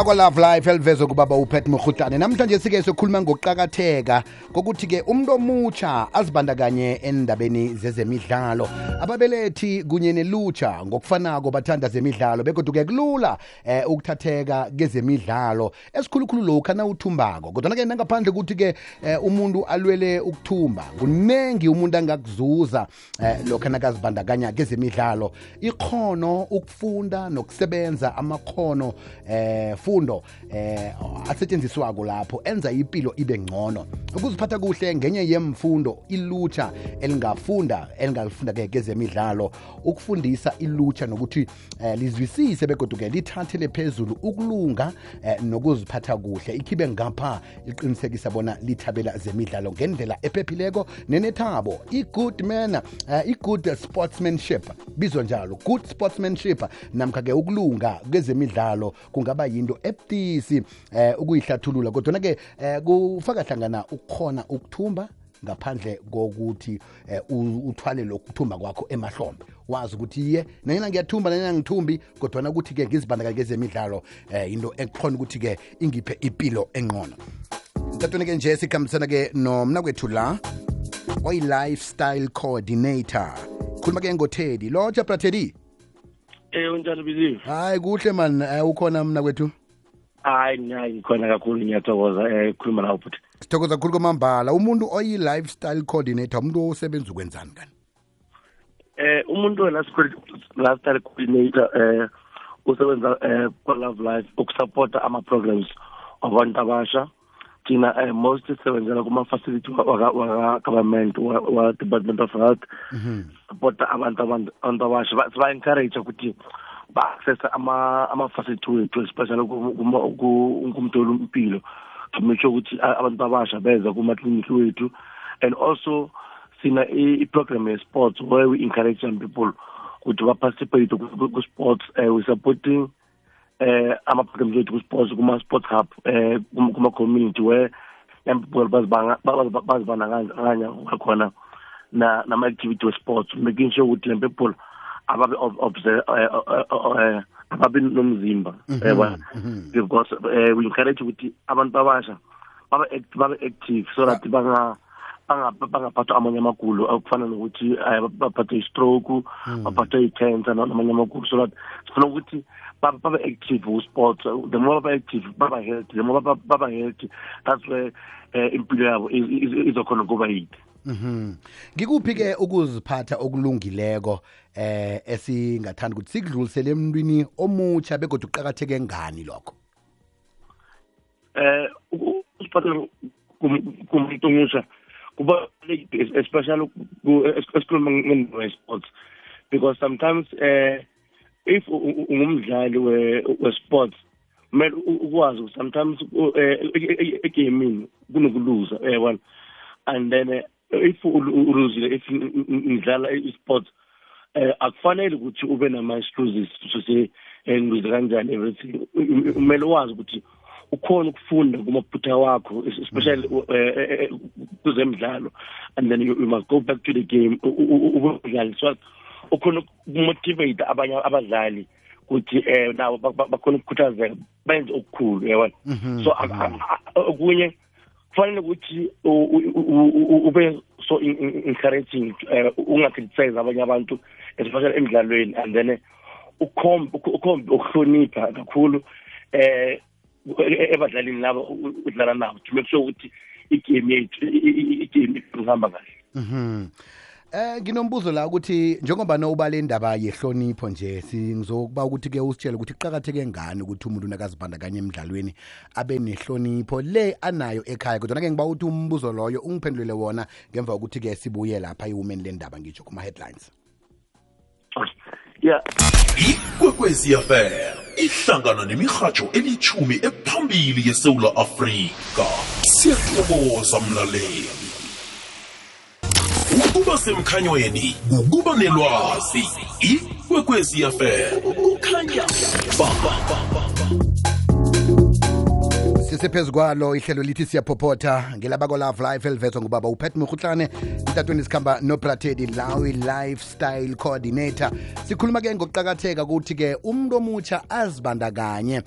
bakwa Love Life elivezwe kubaba uPet Mkhutane. Namhlanje sike sokhuluma ngokuqhakatheka kokuthi ke umuntu omutsha azibandakanye endabeni zezemidlalo. Ababelethi kunye nelutsha ngokufanako bathanda zemidlalo bekodwa ke kulula ukuthatheka kezemidlalo. Esikhulukhulu lokho na uthumbako. Kodwa ke ngaphandle ukuthi ke umuntu alwele ukuthumba. Kunengi umuntu angakuzuza lokho nakazibandakanya kezemidlalo. Ikhono ukufunda nokusebenza amakhono fundo asetshenziswako lapho enza impilo ibe ngcono. Ukuziphatha kuhle ngenye yemfundo ilutsha elingafunda ke kezemidlalo, ukufundisa ilutsha nokuthi lizwisise begodwa ke lithathele phezulu ukulunga nokuziphatha kuhle. Ikhibe ngapha iqinisekisa bona lithabela zemidlalo ngendlela ephephileko nenethabo. I-good manner, i-good sportsmanship bizwa njalo, good sportsmanship namkha ke ukulunga kezemidlalo kungaba yinto ebudisi ukuyihlathulula kodwa ke kufaka hlangana ukukhona ukuthumba ngaphandle kokuthi uthwale lokuthumba kwakho emahlombe. Wazi ukuthi ye nanyana ngiyathumba nanyana ngithumbi kodwa ukuthi ke ngizibandakanye kezemidlalo into ekhona ukuthi ke ingiphe impilo engcono. Ntatweni ke nje sikhambisana ke nomna kwethu la oyi-lifestyle coordinator. Khuluma ke ngoThedi. Lotsha Brathedi. Unjani Biziwe? Hayi kuhle man, ukhona mna kwethu? Hayi ngikhona kakhulu ngiyathokoza khuluma nawe futhi. Sithokoza kakhulu kwamambala. Umuntu oyi-lifestyle coordinator umuntu osebenza ukwenzani kani? Umuntu lifestyle coordinator usebenza kwa Love Life ukusupporta ama-programs wabantu abasha. Thina most sisebenzela kuma-facility waka-government wa-Department of Health. Supporta abantu abasha. Siba-encourage ukuthi ba-accessa ama-facility wethu especially kumtholo impilo to make sure ukuthi abantu abasha beza kuma-clinic wethu. And also sina i-program ye-sports where we encourage young people ukuthi ba-participate ku-sports. We supporting ama-programs wethu ku-sports kuma-sports hub kuma-community where young people bazibandakanya khona nama-activity we-sports, making sure ukuthi young people ababe ababe nomzimba because we encourage ukuthi abantu abasha babe active so that bangaphathwa amanye amagulo akufana nokuthi baphathwe i-stroke, baphathwe i-cancer namanye amagulo. So that sifuna ukuthi babe active ku-sports. The more babe active baba healthy, the more baba healthy, that's where impilo yabo izokhona kuba yide. Ngikuphi ke ukuziphatha okulungileko esingathanda ukuthi sikudlulisele emntwini omutsha begodwa uqhakatheke ngani lokho? Usiphatha kumuntu omusha kuba especially esikhuluma nge-sports because sometimes if ungumdlali we-sports kumele ukwazi sometimes egaming kunokuluza yabona. And then if uluzile if ngidlala i-sports akufanele ukuthi ube nama-excuses to say ngize kanjani everything. Kumele wazi ukuthi ukhona ukufunda kumaphutha wakho especially kuzemidlalo, and then you must go back to the game ubudlali so ukhona ukumotivate abanye abadlali ukuthi nawo bakhona ukukhuthazeka benze okukhulu yabona. So okunye kufanele ukuthi ube so encouraging, ungacriticize abanye abantu especially emidlalweni, and then ukhombe ukuhlonipha kakhulu ebadlalini labo udlala nabo to make sure ukuthi igame ihamba kahle. Nginombuzo la ukuthi njengoba nowubale indaba yehlonipho nje singizokuba ukuthi ke usitshele ukuthi iqhakatheke ngani ukuthi umuntu nakazibandakanye emidlalweni abe nehlonipho le anayo ekhaya. Kodwa ke ngiba uthi umbuzo loyo ungiphendulele wona ngemva ukuthi ke sibuye lapha iwomen le ndaba ngitsho kuma headlines. Yeah. Ikwekwezi affair ihlangana nemirhatsho elithumi ephambili yeSouth Africa. Siyathokoza mlaleli. Ukuba semkhanyweni, ukuba nelwazi. Ikwekwezi affair. Ukhanya. sisephezu kwalo ihlelo lithi siyaphopotha ngelabako Love Life elivezwa ngubaba uPet Mokhutlane itatweni sikhamba noPrathedi Lawi Lifestyle Coordinator. Sikhuluma ke ngokuqakatheka ukuthi ke umuntu omutsha azibandakanye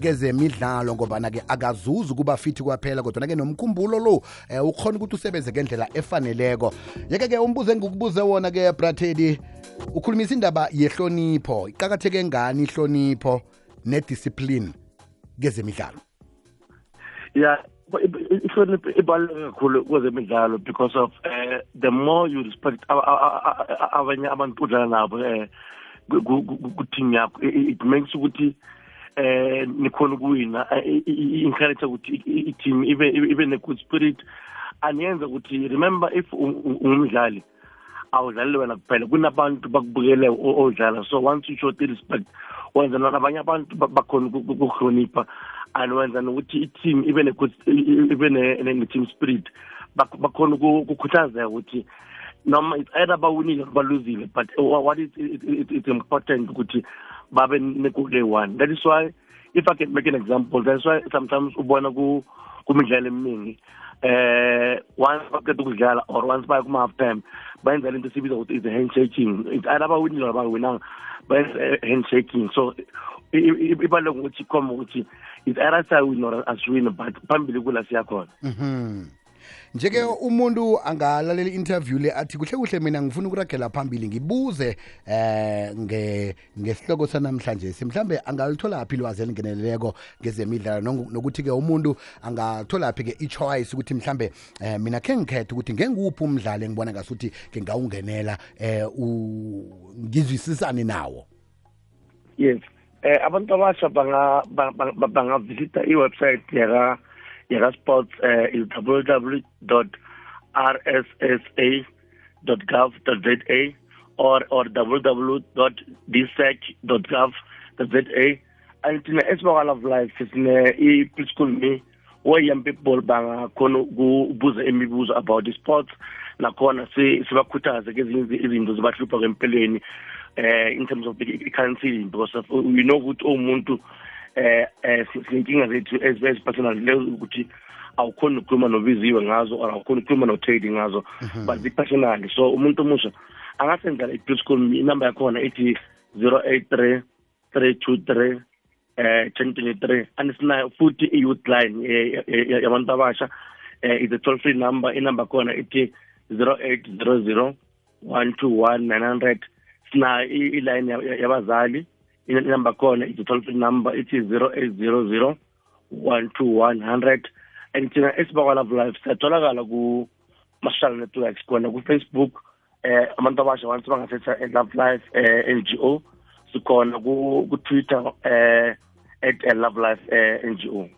kezemidlalo ngoba ke akazuzi kuba fithi kwaphela kodwa ke nomkhumbulo lo ukhona ukuthi usebenze ngendlela efaneleko. Yeke ke umbuzo engikubuze wona ke Prathedi ukhulumisa indaba yehlonipho. Iqakatheke ngani ihlonipho nediscipline kezemidlalo? Yeah, ihlonipho ibaluleke kakhulu kwezemidlalo because of the more you respect abanye abantu udlala nabo ku-team yakho, it makes ukuthi nikhona ukuwina, encourage ukuthi i-team ibe ne-good spirit, aniyenza ukuthi remember if ungumdlali awudlali wena kuphela, kunabantu bakubukele odlala. So once you show the respect, wenza nabanye abantu bakhona ukuhlonipha, and wenza nokuthi i-team ibe ne-team spirit, bakhona ukukhuthazeka ukuthi noma it's either bawinile baluzile, but what is it's important ukuthi babe ne-good one. That is why, if I can make an example, that's why sometimes ubona kumidlalo eminingi once baqeda ukudlala or once baya kuma-half time bayenza lento esibiza ukuthi is a handshaking. It's either bawinile or bawinanga, bayenza handshaking. So ibaluleke ukuthi khoma ukuthi it's either sawina or asiwina, but phambili kula siyakhona. Njeke umuntu angalalela interview le athi kuhle mina ngifuna ukuragela phambili ngibuze ngesihloko sanamhlanje mhlambe angalithola aphi ilwazi elingeneleleko ngezemidlalo nokuthi ke umuntu angathola aphi ke i-choice ukuthi mhlambe mina ke ngikhetha ukuthi ngenguphi umdlalo engibona ngasuthi ke ngawungenela ngizwisisane nawo. Yes, abantu abasha bangavisita i-website yaka-sports is www.rssa.gov.za or www.dsec.gov.za. And thina esiba Love Life sine i-preschool me where young people bangakhona ukubuza imibuzo about the sports, nakhona sibakhuthaze kezinye izinto zibahlupha kwempeleni in terms of the counseling, because of, we know ukuthi umuntu sinkinga zethu as personal ukuthi awukhona ukukhuluma nobiziwe ngazo or awukhona ukukhuluma no-trading ngazo, but personally. So umuntu omusha angasenzela i-preschool inumber yakhona ithi 083 323 1023, and sinayo futhi i-youth line yabantu abasha is a toll free number. Inumber yakhona ithi 0800 121 900. Sinayo i-line yabazali, inumber yakhona is a toll free number ithi 0800 121 100. And thina esiba Love Life siyatholakala ku-social networks khona ku-Facebook, abantu abasha once bangasetha Love Life NGO, sikhona ku-Twitter at Love Life NGO.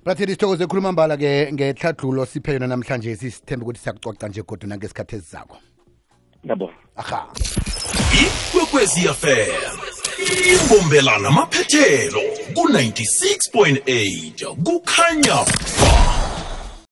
Prathedi sithokoze khuluma mbala ke ngehlahlulo siphe yona namhlanje, sisithembe ukuthi siyakucoca nje kodwa nangesikhathi ezizako. Yabo. Aha. Ikwekwezi FM imbombelana amaphethelo ku 96.8 kukhanya